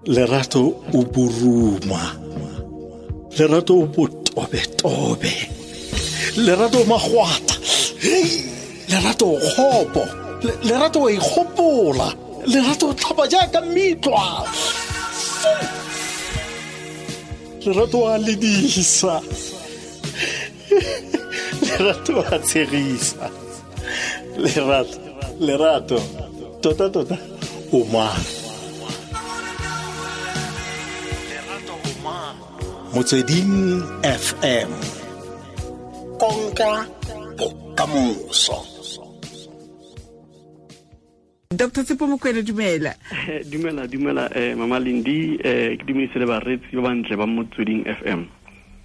Lerato o boruma, Lerato o botobetobe, Lerato o magwata, Lerato o kgopo, Lerato o ikgopola, Lerato o tlhapa jaaka mitlwa, Lerato a ledisa, Lerato a tshegisa, Lerato, Lerato, tota tota o mang? Motsweding FM, konka bokamoso. Dr. Tshepo Mokwena, dumela. Dumela, dumela, Mama Lindi, ke dumedise le bareetsi ba bantle ba Motsweding FM.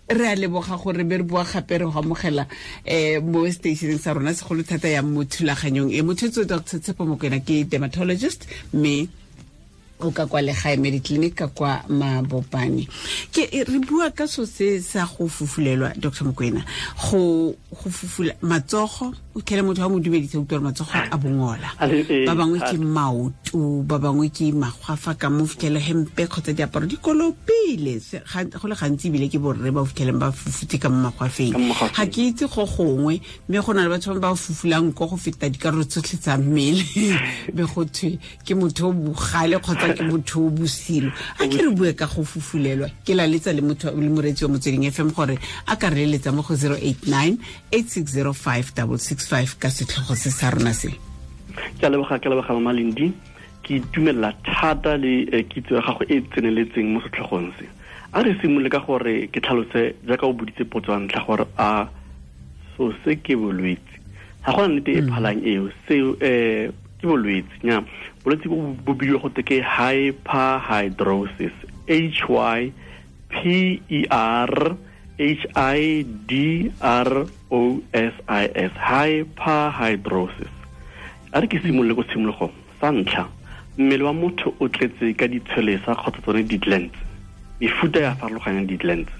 Re a leboga gore be re boa gape re go amogela mo stationeng sa rona, segolo thata ya mo thulaganyong e. Motho Dr. Tshepo Mokwena ke dermatologist, mme o ka kwa Legae Mediclinic ka kwa Mabopane. Ke re bua ka so se sa go fufulelwa, Dr. Mokwena, go fufula matsogo, o tlhele motho wa mo dumedisa, utlwa matsogo a bongola, ba bangwe ke maoto, ba bangwe ke magwafa ka mo fitlhele hempe kgotsa diaparo di kolopile. Go le gantsi ebile ke borre ba fitlheleng ba fufutse ka mo magwafeng. Ga ke itse go gongwe, mme go na le batho ba fufulang ko go feta dikarolo tsotlhe tsa mmele, be go thwe ke motho o bogale kgotsa ke motho o bosilo. A ke re bue ka go fufulelwa, ke laletsa le motho le moreetsi wa Motsweding FM gore a ka re leletsa mo go 089 8605 665 ka setlhogo se sa rona se. Ke a leboga, ke a leboga Mama Lindi. Ke itumelela thata le kitso ya gago e tseneletseng mo setlhogong se. A re simolole ka gore ke tlhalose jaaka o boditse potso ya ntlha gore a so se ke bolwetse. Ga gona nnete e phalang eo, seo ke bolwetse. Nya, bolwetse bo bo bidiwa go te ke hyperhidrosis, H Y P E R H I D R O S I S, hyperhidrosis. A re ke simolole ko tshimologong. Sa ntlha, mmele wa motho o tletse ka ditshwelesa kgotsa tsone di-glands, mefuta ya farologanyang di-glands.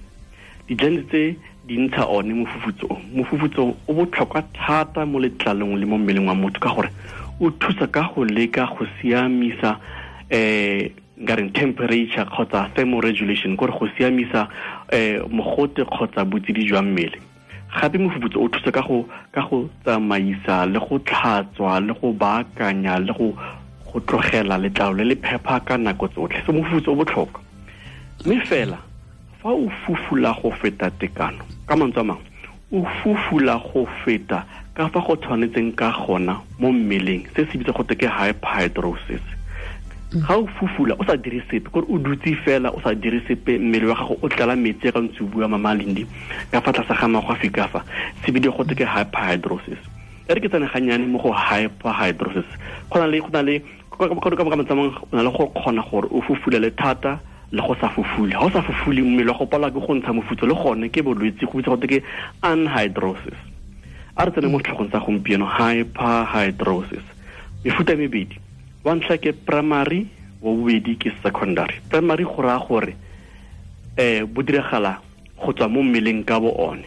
Di-glands tse di ntsha one mofufutso o. Mofufutso o botlhokwa thata mo letlalong le mo mmeleng wa motho ka gore o thusa ka go leka go siamisa nka reng temperature kgotsa thermoregulation, kore go siamisa mogote kgotsa botsididi jwa mmele. Gape mofufutso o thusa ka go tsamaisa le go tlhatswa le go baakanya le go tlogela letlalo le le phepa ka nako tsotlhe. So mofufutso o botlhokwa. Mme fela fa o fufula go feta tekano, ka mantswe a mangwe, o fufula go feta ka fa go tshwanetseng ka gona mo mmeleng, se se bitsa go te ke hyperhidrosis. Ga o fufula o sa dire sepe, kore o dutse fela o sa dire sepe, mmele wa gago o tlala metsi ka ntse o bua Mama Lindi ka fa tlase ga magwafi ka fa, se bidiwa go te ke hyperhidrosis. E re ke tsene gannyane mo go hyperhidrosis. Go na le ka mantswe a mangwe, o na le go kgona gore o fufulele thata le go sa fufule. Ha o sa fufule, mmele wa go palwa ke go ntsha mofutso, le gone ke bolwetse, go bitsa go te ke anhidrosis. A re tsene mo setlhogong sa gompieno, hyperhidrosis. Mefuta e mebedi, wa ntlha ke primary, wa bobedi ke secondary. Primary go raya gore bo diragala go tswa mo mmeleng ka bo one.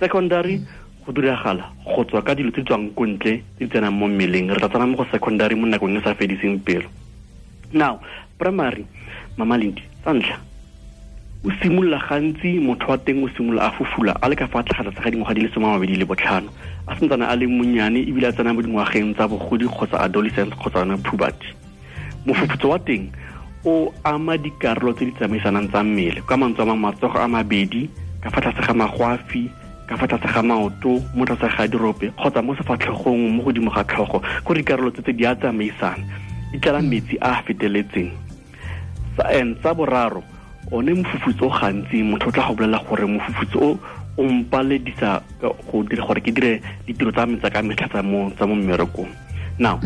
Secondary go diragala go tswa ka dilo tse di tswang ko ntle tse di tsenang mo mmeleng. Re tla tsena mo go secondary mo nakong e sa fediseng pelo. Now, primary, Mama Lindi, sa ntlha, o simolola gantsi motho wa teng o simolola a fufula a le ka fa tlase ga dingwaga di le 25, a santsane a le monnyane ebile a tsena mo dingwageng tsa bogodi kgotsa adolescence kgotsa yona puberty. Mofufutso wa teng o ama dikarolo tse di tsamaisanang tsa mmele, ka mantswe a mangwe, matsogo a mabedi, ka fa tlase ga magwafi, ka fa tlase ga maoto, mo tlase ga dirope kgotsa mo sefatlhegong, mo godimo ga tlhogo. Ko dikarolo tse tse di a tsamaisana, di tlala metsi a a feteletseng. Sa boraro, one mofufutso o gantsi motho o tla go bolela gore mofufutso o o mpaledisa go dira gore ke dire ditiro tsa me tsa ka metlha tsa mo mmerekong. Now,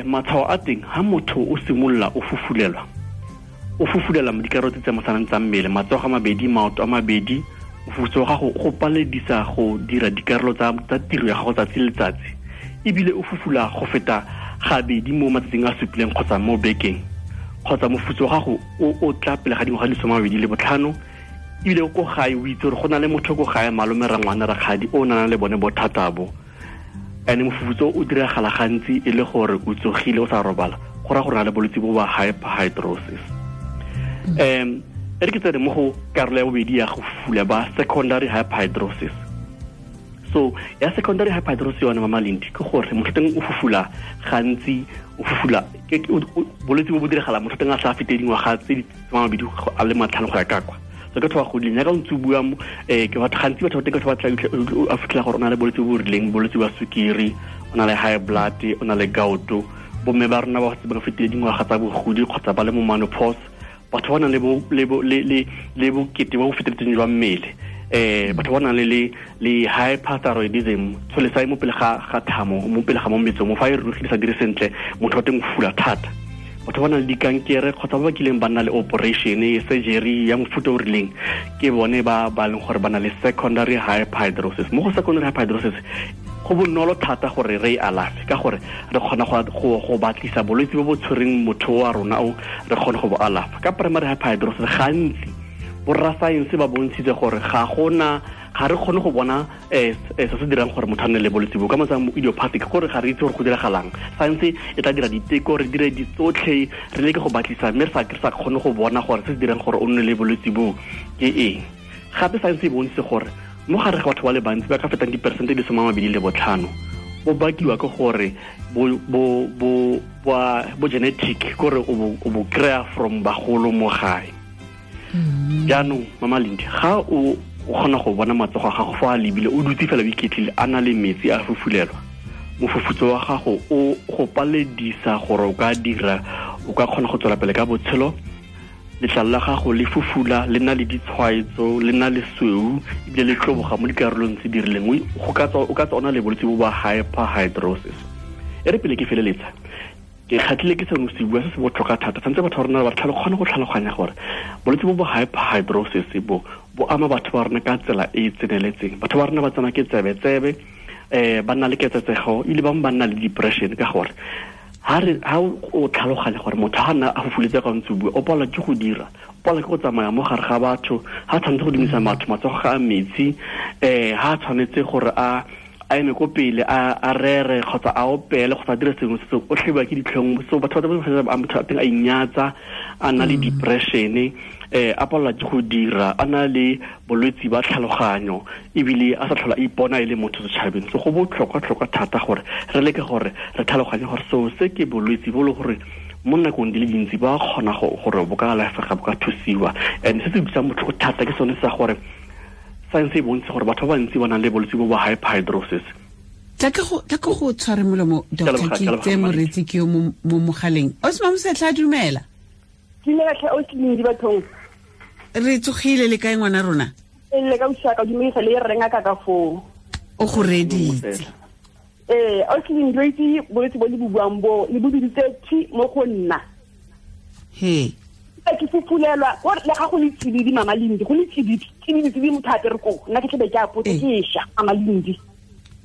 matshwao a teng, ha motho o simolola o fufulelwa, o fufulela mo dikarolo tse tsamaisanang tsa mmele, matsogo a mabedi, maoto a mabedi, mofufutso wa gago go paledisa go dira dikarolo tsa tiro ya gago tsatsi le letsatsi, ebile o fufula go feta gabedi mo matsatsing a supileng kgotsa mo bekeng, kgotsa mofufutso wa gago o tla pele ga dingwaga di 25, ebile ko gae o itse gore go na le motho ko gae, malome, rangwane, rakgadi, o nang le bone bothata bo. And mofufutso o diragala gantsi e le gore o tsogile o sa robala, go ra gore na le bolwetse bo ba hyperhidrosis. E re ke tsene mo go karolo ya bobedi ya go fufula ba secondary hyperhidrosis. So ya secondary hyperhidrosis yone Mama Lindi ke gore motho teng o fufula gantsi, o fufula bolwetse bo bo diragala motho teng a sa fete dingwaga tse di 25 a le 50 go ya ka kwa. So ke batho ba godileng jaaka o ntse o bua ke batho gantsi batho ba teng batho ba tla a fitlhela gore o na le bolwetse bo bo rileng, bolwetse ba sukiri, o na le high blood, o na le gout. Bomme ba rona ba ba fetile dingwaga tsa bogodi kgotsa ba le mo menopause, batho ba nang le bokete bo bo feteletseng jwa mmele, batho ba nang le hyperthyroidism, tsholesa mo pele ga thamo, mo pele ga mo metsong, mo fa e rurugile sa dire sentle, motho wa teng o fula thata. Batho ba nang le dikankere kgotsa ba ba kileng ba nna le operation, surgery ya mofuta o rileng, ke bone ba ba leng gore ba na le secondary hyperhidrosis. Mo go secondary hyperhidrosis go bonolo thata gore re e alafe ka gore re kgona go batlisa bolwetse bo bo tshwereng motho wa rona o re kgone go bo alafa. Ka primary hyperhidrosis gantsi borra science ba bontshitse gore ga re kgone go bona se se dirang gore motho a nne le bolwetse bo ka motsang idiopathic, gore ga re itse gore go diragalang. Science e tla dira diteko, re dire ditsotlhe, re leke go batlisa mme re sa kgone go bona gore se se dirang gore o nne le bolwetse bo ke eng. Gape science e bontshitse gore mo gare ga batho ba le bantsi ba ka fetang diperesente di 25 bo bakiwa ke gore bo genetic, gore o bo kry-a from bagolo mo gae. Jaanong Mama Lindi, ga o kgona go bona matsogo a gago fa a lebile, o dutse fela o iketlile, a na le metsi a fufulelwa, mofufutso wa gago o go paledisa gore o ka dira, o ka kgona go tswela pele ka botshelo. Letlalo la gago le fufula, le na le ditshwaetso, le na le sweu, ebile le tloboga mo dikarolong tse di rileng. O ka tswa o na le bolwetse bo ba hyperhidrosis. E re pele ke feleletsa, ke kgatlhile ke seno se bua se se botlhokwa thata. Tshwanetse batho ba rona ba kgone go tlhaloganya gore bolwetse bo bo hyperhidrosis bo ama batho ba rona ka tsela e e tseneletseng. Batho ba rona ba tsena ke tsebe-tsebe, ba nna le ketsetsego, ebile bangwe ba nna le depression ka gore ha o tlhaloganya gore motho ha nna a fufuletse ka ntse bua, o palelwa ke go dira, o palelwa ke go tsamaya mo gare ga batho, ha tshwanetse go dumisa batho matsogo ga a metsi, ha tshwanetse gore a eme ko pele a rere kgotsa a opele kgotsa a dire sengwe se o tlhebiwa ke ditlhong. So batho ba motho a teng a inyatsa, a nna le depression, a palelwa ke go dira, a na le bolwetse ba tlhaloganyo, ebile a sa tlhola a ipona e le motho setšhabeng. So go botlhokwa-tlhokwa thata gore re leke gore re tlhaloganye gore seo se ke bolwetse bo le gore mo nakong di le dintsi ba kgona gore bo ka alafega, bo ka thusiwa. And se se utlwisang botlhoko thata ke sone sa gore science e bontshe gore batho ba bantsi ba nang le bolwetse bo ba hyperhidrosis. Tla ke go tshware molomo, Doctor, ke tse moretsi ke yo mo mogaleng. Osma Mosetlha, dumela. Dumela tlhe Oslindi bathong. Re tsogile le kae ngwana rona? Le ka ushaka dumedisa le re ngaka ka foo. O go reditse. Oslindi re itse bolwetse bo le bo buang bo le bo biditse thi mo go nna. He. Ke fufulelwa gore le ga go le tsididi Mama Lindi, go le tsididi tsididi motho a apere ko nna ke tlebe ke apotse ke sha Mama Lindi.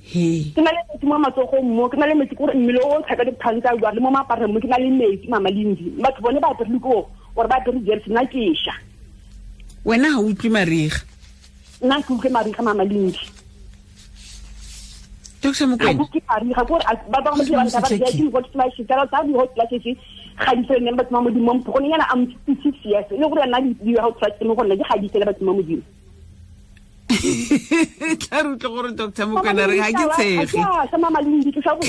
He. Ke na le metsi mo matsogong mo, ke na le metsi gore mmele o tlhaka dikgang tsa bua le mo mapareng mo, ke na le metsi Mama Lindi. Batho bone ba apere ko gore ba apere jersey, nna ke sha. Wena ha o utlwe mariga? Nna ke utlwe mariga Mama Lindi. Dr. Mokwena. Ke mariga gore ba bangwe ba ba ba di hot flashes, tsa di hot flashes ga di fele batho ba Modimo mpho gone yana am 56 years le gore nna di hot flashes mo go nna di ga di fele batho ba Modimo. Tla re utlwe gore Dr. Mokwena re ga ke tshege. Sa Mama Lindi ke sa go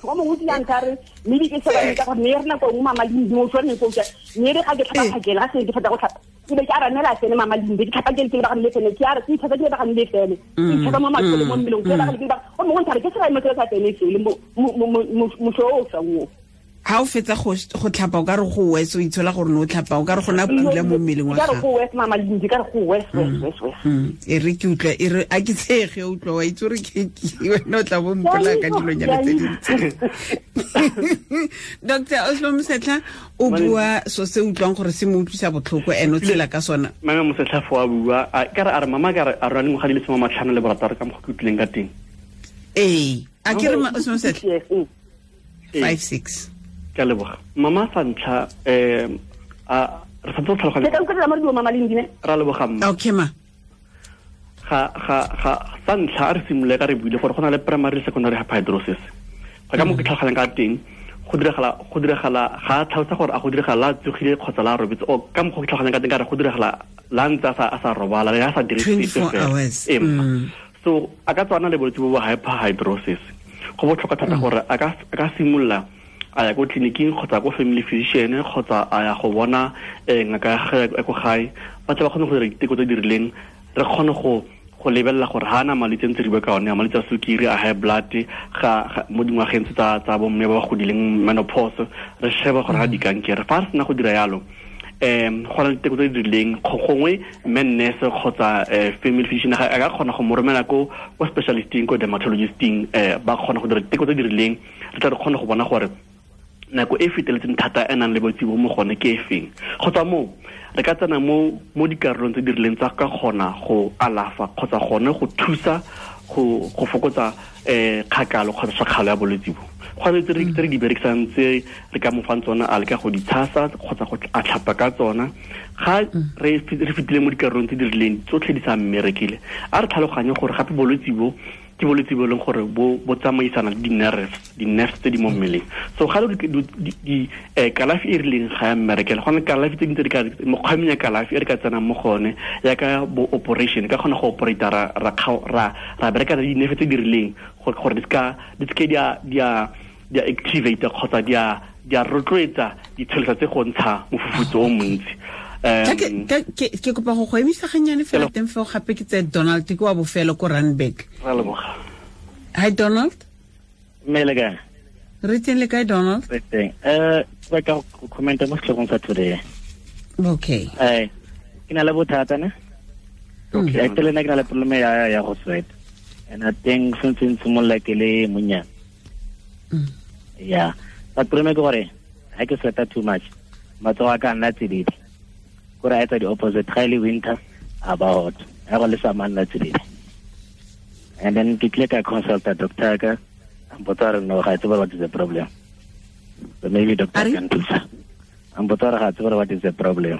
go mo go yang ka re mme ke sa ba ka gore ne re nako nngwe Mama Lindi mo tshwane go tsa ne re ga ke tlhapa phakela ga se ke feta go tlhapa ke be ke a ranela tsene Mama Lindi ke tlhapa ke le ba ga le tsene ke a re ke tlhapa ke ba ga le tsene ke tlhapa mo matsolo mo mmeleng ke ba ga le ba o mongwe ntare ke se ga mo tsela tsene se le mo mo so o sa wo. Ha o fetsa go tlhapa o ka re go wes, o itshola gore no tlhapa o ka re gona pula mo mmeleng wa gago. Ka re go wes Mama Lindi, ka re go wes wes wes. E re ke utlwa e re a ke tshege o utlwa wa itse gore ke wena o tla bo mpola ka dilonyana tse dintsi. Dr. Oslo Mosetlha o bua so se utlwang gore se mo utlwisa botlhoko ene o tshela ka sona. Mama Mosetlha fo a bua ka re a re mama ka re a rona dingwaga di le 56 ka mo go utlwileng ka teng. Ee, a ke re Oslo Mosetlha 56. Ka leboga. Mama sa ntlha a re santse tlhaloganya. Ke ka utlwa mama di Mama Lindi ne. Ra leboga mma. Okay ma. Ga sa ntlha a re simolole ka re buile gore go na le primary le secondary hyperhidrosis. Go ka mo ke tlhaloganyang ka teng, Go diragala ga tlhalosa gore a go diragala tsogile kgotsa la robetse o ka mokgwa ke tlhaloganyang ka teng ka re go diragala la ntse a sa robala le a sa dire sepe fela. So a ka tswana le bolwetse bo hyperhidrosis. Go botlhokwa thata gore a ka simolola a ya ko tleliniking kgotsa ko family physician kgotsa a ya go bona ngaka ya gagwe ko gae, ba tle ba kgone go dira diteko tse di rileng, re kgone go lebelela gore ha na malwetse ntse re bua ka one, a malwetse a sukiri, a high blood, ga mo dingwageng tse tsa bomme ba ba godileng, menopause, re sheba gore ga dikankere. Fa re sena go dira yalo, go na le diteko tse di rileng, gongwe mme nurse kgotsa family physician a ka kgona go mo romela ko specialisting, ko dermatologisting, ba kgona go dira diteko tse di rileng, re tla re kgone go bona gore nako e feteletseng thata e nang le bolwetse bo mo gone ke e feng. Go tswa moo re ka tsena mo dikarolong tse di rileng tsa ka kgona go alafa kgotsa gone go thusa go fokotsa kgakalo kgotsa tshakgalo ya bolwetse bo. Go na le tse re di berekisang tse re ka mo fang tsona, a leka go di tshasa kgotsa go a tlhapa ka tsona. Ga re fetile mo dikarolong tse di rileng tsotlhe di sa mmerekile, a re tlhaloganye gore gape bolwetse bo ke bolwetse bo e leng gore bo tsamaisana le di-nerves tse di mo mmeleng. So ga le kalafi e rileng ga ya mmerekela, go na le kalafi tse dingwe tse di ka mekgwa ya kalafi e re ka tsenang mo gone yaka bo operation, ka kgona go operate ra bereka le di-nerve tse di rileng gore di seke di a activate kgotsa di a rotloetsa ditshelesa tse go ntsha mofufutso o montsi. Ke kopa go emisa gannyane fela teng feo gape ke tse Donald ke wa bofelo ko Randburg. Hi Donald. Mme le kae? Re teng le kae Donald? Re teng. Ke batla go commenta mo setlhogong sa today. Okay. Ke na le bothata ne? Okay. Actually nna ke na le problem ya go sweat. And I think since simolola ke le monnyane. Yeah. But problem ke gore ha ke sweata too much, matsogo a ka nna tsididi. Kore a etsa the opposite, ga e le winter about ha go le summer nna tsididi. And then ke tlile ka consulta doctor ka, a mpotsa gore no, ga tsebe what is the problem. So maybe doctor can thusa. A mpotsa gore ga tsebe what is the problem.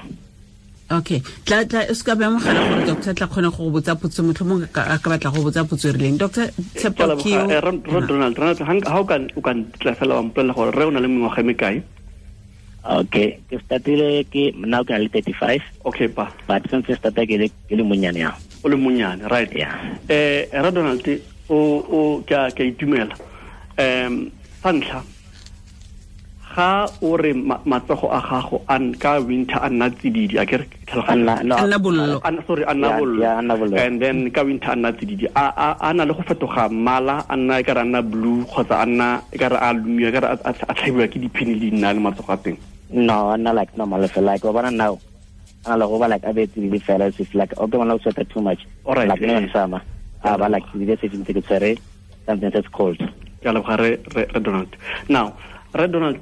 Okay, tla o ska ba mogala gore doctor tla kgone go botsa potso, motlhomong a ka batla go botsa potso e rileng. Doctor Tshepo ke Donald, ha o ka tla fela wa mpolelela gore re o na le mengwaga e mekae? Okay, ke startile ke now ke na le 35. Okay pa. But since I started ke le monyane ya. O le monyane, right. Yeah. Ra Donald o ka itumela. Sa ntlha ga o re matsogo a gago a ka winter a nna tsididi, a ke re nna bollo. Sorry, a nna bollo. And then ka winter a nna tsididi, a na le go fetoga mmala, a nna e ka re a nna blue kgotsa a nna e ka re a lumiwa, e ka re a tlhabiwa ke diphini le dinna le matsogo a teng. No, I'm not like normal. Like, now, I'm like, I bet it's like, okay, when I sweat too much. All right. Like, in summer, I like, something that's cold. Donald. Now, Red Donald,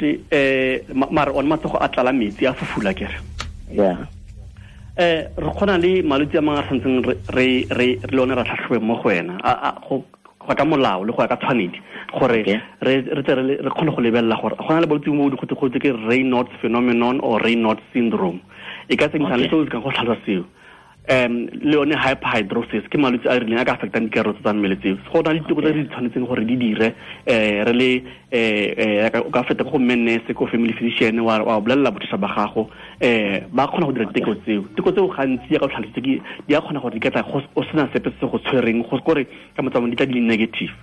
mara on matsogo a tlala metsi a fufula kere. Yeah. Re kgona le malwetse a mangwe a santseng re le one ra tlhatlhobe mo go wena go ka molao le go ya ka tshwanedi gore re tle re kgone go lebelela gore go na le bolwetse bo go ke Raynaud's phenomenon or Raynaud's syndrome. E ka tsengisa le seo se ka go tlhalosa seo. Le yone hyperhidrosis ke malwetse a rileng a ka affectang dikarolo tsa mmele tseo. Go na le diteko tse di tshwanetseng gore di dire, re le o ka feta go mme nurse ko family physician wa bolelela bothata ba gago, ba kgona go dira diteko tseo. Diteko tseo gantsi ya ka tlhalositse ke di a kgona gore di ka tla o sena sepe se go tshwereng, go kore ka motsamaong di tla di le negative.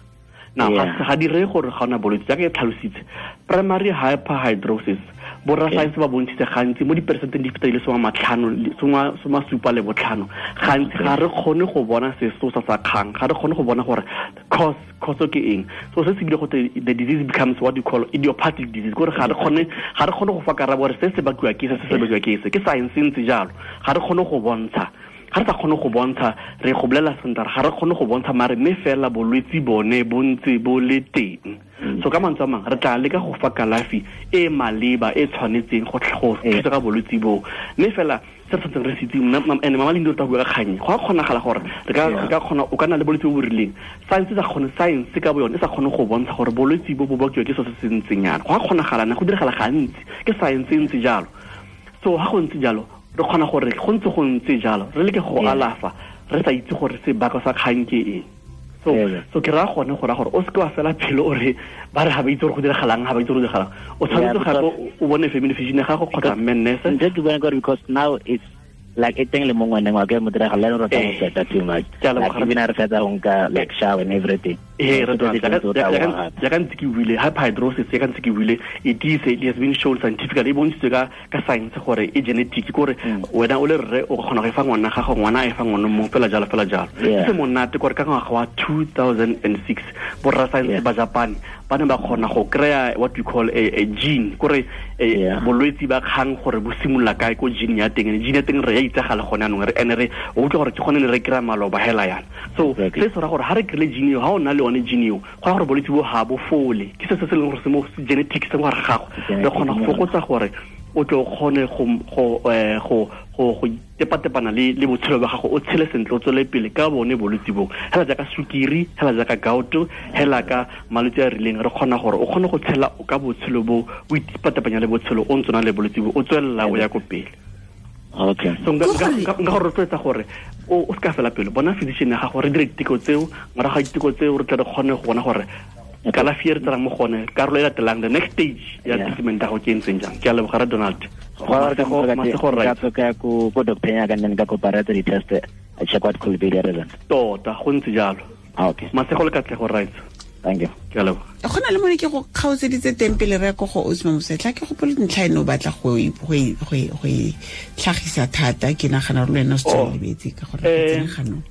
Now, ga di reye gore ga ona bolwetse jaaka e tlhalositse. Primary hyperhidrosis, borra science ba bontshitse gantsi mo diperesenteng di feta di le 75, gantsi ga re kgone go bona sesosa sa kgang, ga re kgone go bona gore cause ke eng. So se se bile go the disease becomes what you call idiopathic disease, gore ga re kgone go fa karabo gore se se bakiwa ke se se bakiwa ke se, ke science ntse jalo. Ga re kgone go bontsha, ga re sa kgone go bontsha, re go bolela sentle ga re kgone go bontsha mare mme fela bolwetse bone bo ntse bo le teng. So ka mantswe a mangwe re tla leka go fa kalafi e maleba e tshwanetseng go thusa ka bolwetse bo, mme fela se re tshwanetseng re se itse, ene mama Lindi o tla bua ka kgang, go a kgonagala gore re ka kgona o ka nna le bolwetse bo bo rileng, science sa kgone, science ka bo yone e sa kgone go bontsha gore bolwetse bo bo bakiwa ke so se se ntseng yana. Go a kgonagala ne go diragala gantsi, ke science e ntse jalo. So ha go ntse jalo re kgona gore go ntse jalo re leke go alafa re sa itse gore sebaka sa kgang ke eng. So ke ra gone go ra gore o se ke wa fela pelo o re ba re ga ba itse gore go diragalang, ga ba itse gore go diragalang. O tshwanetse gape o bone family physician ya gago kgotsa mme nurse. Ntse ke bona gore because now it's like e teng le mo ngwaneng wa ke mo diragala le rota go sweat too much. Like even a re fetsa go nka like shower and everything. Eh, re ya ka ntse ke buile hyperhidrosis, ya ka ntse ke buile, it has been shown scientifically, e bontshitswe ka science gore e genetic, gore wena o le rre o kgona go e fa ngwana gago, ngwana a e fa ngwana mongwe, fela jalo fela jalo. Se monate gore ka ngwaga wa 2006 borra science ba Japan ba ne ba kgona go kry-a what we call a gene, kore bolwetsi ba kgang gore bo simolola kae ko gene ya teng. Gene ya teng re ya itsagala gone anong, re ene re o utlwa gore ke gone ne re kry-a maloba hela yana. So se se ra gore ha re kry-ile gene eo, ha o na le yone gene eo, go ra gore bolwetsi bo ha bo fole. Ke se se leng gore se mo genetics se mo gare ga gago. Re kgona go fokotsa gore o tle o kgone go tepatepana le botshelo ba gago, o tshele sentle, o tswele pele ka bone bolwetsi bo. Hela jaaka sukiri, hela jaaka gout, hela ka malwetse a rileng, re kgona gore o kgone go tshela ka botshelo bo, o itepatepanya le botshelo o ntse o na le bolwetsi bo, o tswelela o ya ko pele. Okay. So nka go rotloetsa gore o se ka fela pelo, bona physician ya gago, re dire diteko tseo, morago ga diteko tseo re tle re kgone go bona gore kalafi e re tserang mo gone, karolo e latelang, the next stage ya treatment ya gago ke e ntseng jang. Ke a leboga re Donald. Ka ko doctor ya ka nne ka kopa re tse di-test, I check what could be the reason. Tota, go ntse jalo. Okay. Masego le katlego, right. Thank you. Ke a leboga. Go na le mone ke go kgaotseditse teng pele re ya ko go Osmo Mosetlha, ke gopole ntlha eno o batla go e tlhagisa thata, ke nagana gore le wena o setse o lebetse ka gore re tsene ganong.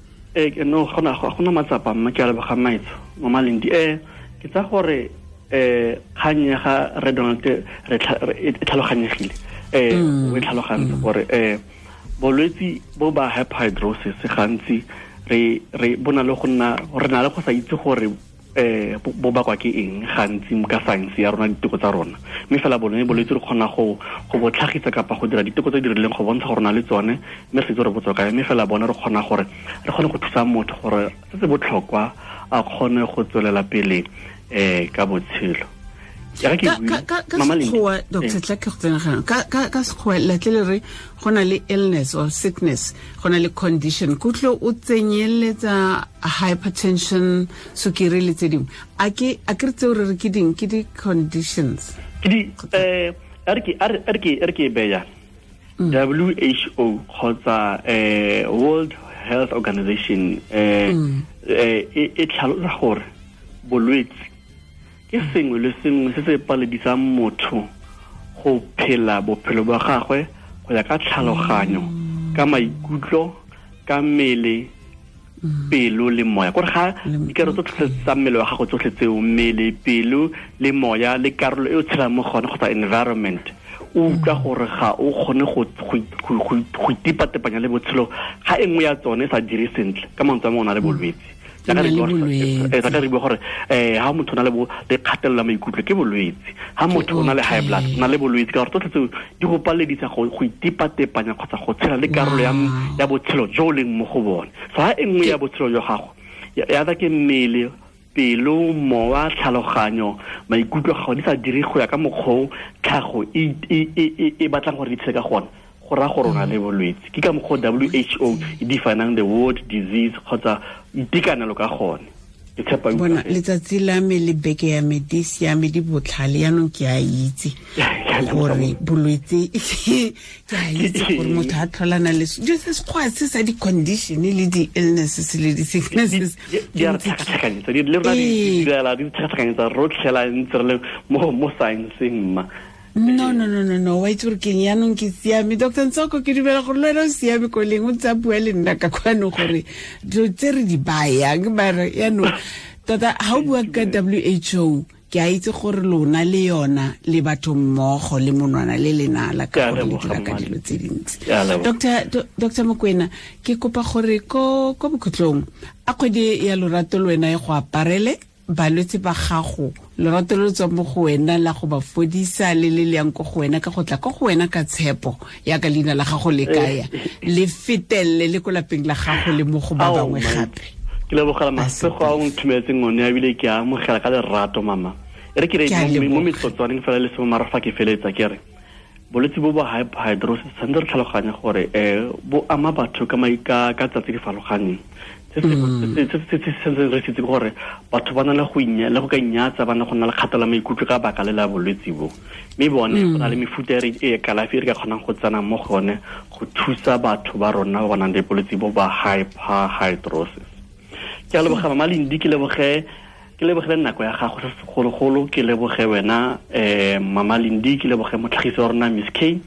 No, gona matsapa mma, ke a leboga maitsho, Mama Lindi. Ke tsa gore kgang ya ga Re Donald e tlhaloganyegile. O e tlhalogantse gore bolwetsi bo ba hyperhidrosis gantsi re bona le go nna re na le go sa itse gore bo bakwa ke eng gantsi ka science ya rona, diteko tsa rona, mme fela bone bolwetse re kgona go bo tlhagisa kapa go dira diteko tse di rileng go bontsha gore na le tsone, mme re itse gore bo tswa kae, mme fela bone re kgona gore re kgone go thusa motho gore se se botlhokwa a kgone go tswelela pele ka botshelo. Ka sekgowa, Dr. Tla ke go tsena ganong. Ka sekgowa la tle le re go na le illness or sickness, go na le condition, kutlo o tsenyeletsa hypertension, sukiri le tse dingwe. A ke re tseo re re ke ding, ke di-conditions? Ke di, a re ke e beya WHO kgotsa World Health Organization e tlhalosa gore bolwetse ke sengwe le sengwe se se paledisang motho go phela bophelo ba gagwe go ya ka tlhaloganyo, ka maikutlo, ka mmele, pelo le moya. Gore ga dikarolo tsotlhe tsa mmele wa gago tsotlhe tseo, mmele, pelo le moya le karolo e o tshelang mo gone kgotsa environment, o utlwa gore ga o kgone go itepatepanya le botshelo ga e nngwe ya tsone e sa dire sentle, ka mantswe a mangwe o na le bolwetse. Ka re bua gore ha motho o na le kgatelelo ya maikutlo ke bolwetse, ha motho o na le high blood o na le bolwetse, ka gore tsotlhe tseo di go paledisa go itepatepanya kgotsa go tshela le karolo ya botshelo jo o leng mo go bone. So ha e nngwe ya botshelo jwa gago ya tsa ke mmele, pelo, mowa, tlhaloganyo, maikutlo a gago di sa dire go ya ka mokgwa o tlhago e batlang gore di tshele ka gone, go raya gore o na le bolwetse. Ke ka mokgwa WHO e definang the word disease kgotsa itekanelo ka gone. Ke tshepa bona letsatsi la me le beke ya me di siame, di botlhale, yaanong ke a itse gore bolwetse ke a itse gore motho a tlholana le dilo se sekgowa se sa di-condition le di-illnesses le di-sicknesses di a re tlhakatlhakanyetsa, le rona di direla di tlhakatlhakanyetsa rotlhe la ntse re le mo science-eng mma. No, wa itse gore keng, yaanong ke siame. Dr. Ntsoko, ke dumela gore le wena o siame ko leng, o ntse a bua le nna ka kwano gore dilo tse re di bayang, mara yaanong tota ga o bua ka WHO, ke a itse gore lona le yona le batho mmogo le monwana le lenala ka gore le dira ka dilo tse dintsi. Dr. Mokoena, ke kopa gore ko bokhutlong a kgwedi ya lorato le wena e go aparele balwetse ba gago, lorato lo tswa mo go wena la go ba fodisa le le yang ko go wena ka go tla ko go wena ka tshepo ya ka leina la gago le kaya le fetelle le ko lapeng la gago le mo go ba bangwe gape. Ke lebogela masego a o nthumetseng one, ebile ke a amogela ka lerato mama. E re ke re mo metsotswaneng fela le sengwe mara fa ke feletsa ke re bolwetse bo ba hyperhidrosis tshwanetse re tlhaloganye gore bo ama batho ka tsatsi di farologaneng. Se se sentseng re sitse gore batho ba na le go le go ka inyatsa, ba na go nna le kgatela maikutlo ka baka le la bolwetse bo, mme bone go na le mefuta e kalafi e re ka kgonang go tsena mo gone go thusa batho ba rona ba ba nang le bolwetse bo ba hyperhidrosis. Ke a leboga Mama Lendi, ke lebogele nako ya gago se segologolo, ke leboge wena Mama Lendi, ke leboge motlhagisi wa rona Miss K,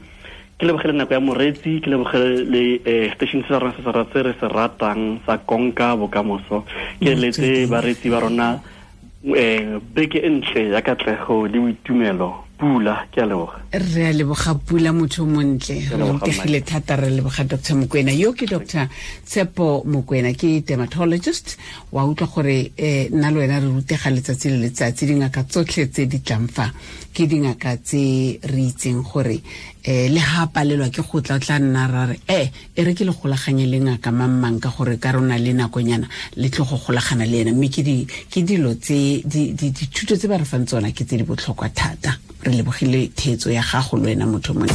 ke lebogele nako ya moretsi, ke lebogele le station se rona se se re se ratang sa Konka Bokamoso. Ke letse baretsi ba rona beke e ntle ya katlego le boitumelo. Pula, ke a leboga. Re a leboga Pula, motho montle, re rutegile thata. Re leboga Dr. Mokoena. Yo ke Dr. Tshepo Mokoena, ke dermatologist. Wa utlwa gore nna le wena re rutega letsatsi le letsatsi. Dingaka tsotlhe tse di tlang fa ke dingaka tse re itseng gore le ha palelwa ke go tla tla nna ra re e re ke le golaganye le ngaka mang ka gore ka rona le nakonyana le tlo go golagana le ena, mme ke dilo tse dithuto tse ba re fang tsona ke tse di botlhokwa thata. Re lebogile theetso ya gago le wena motho mongwe.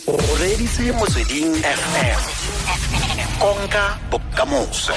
O reditse Motsweding FM, Konka Bokamoso.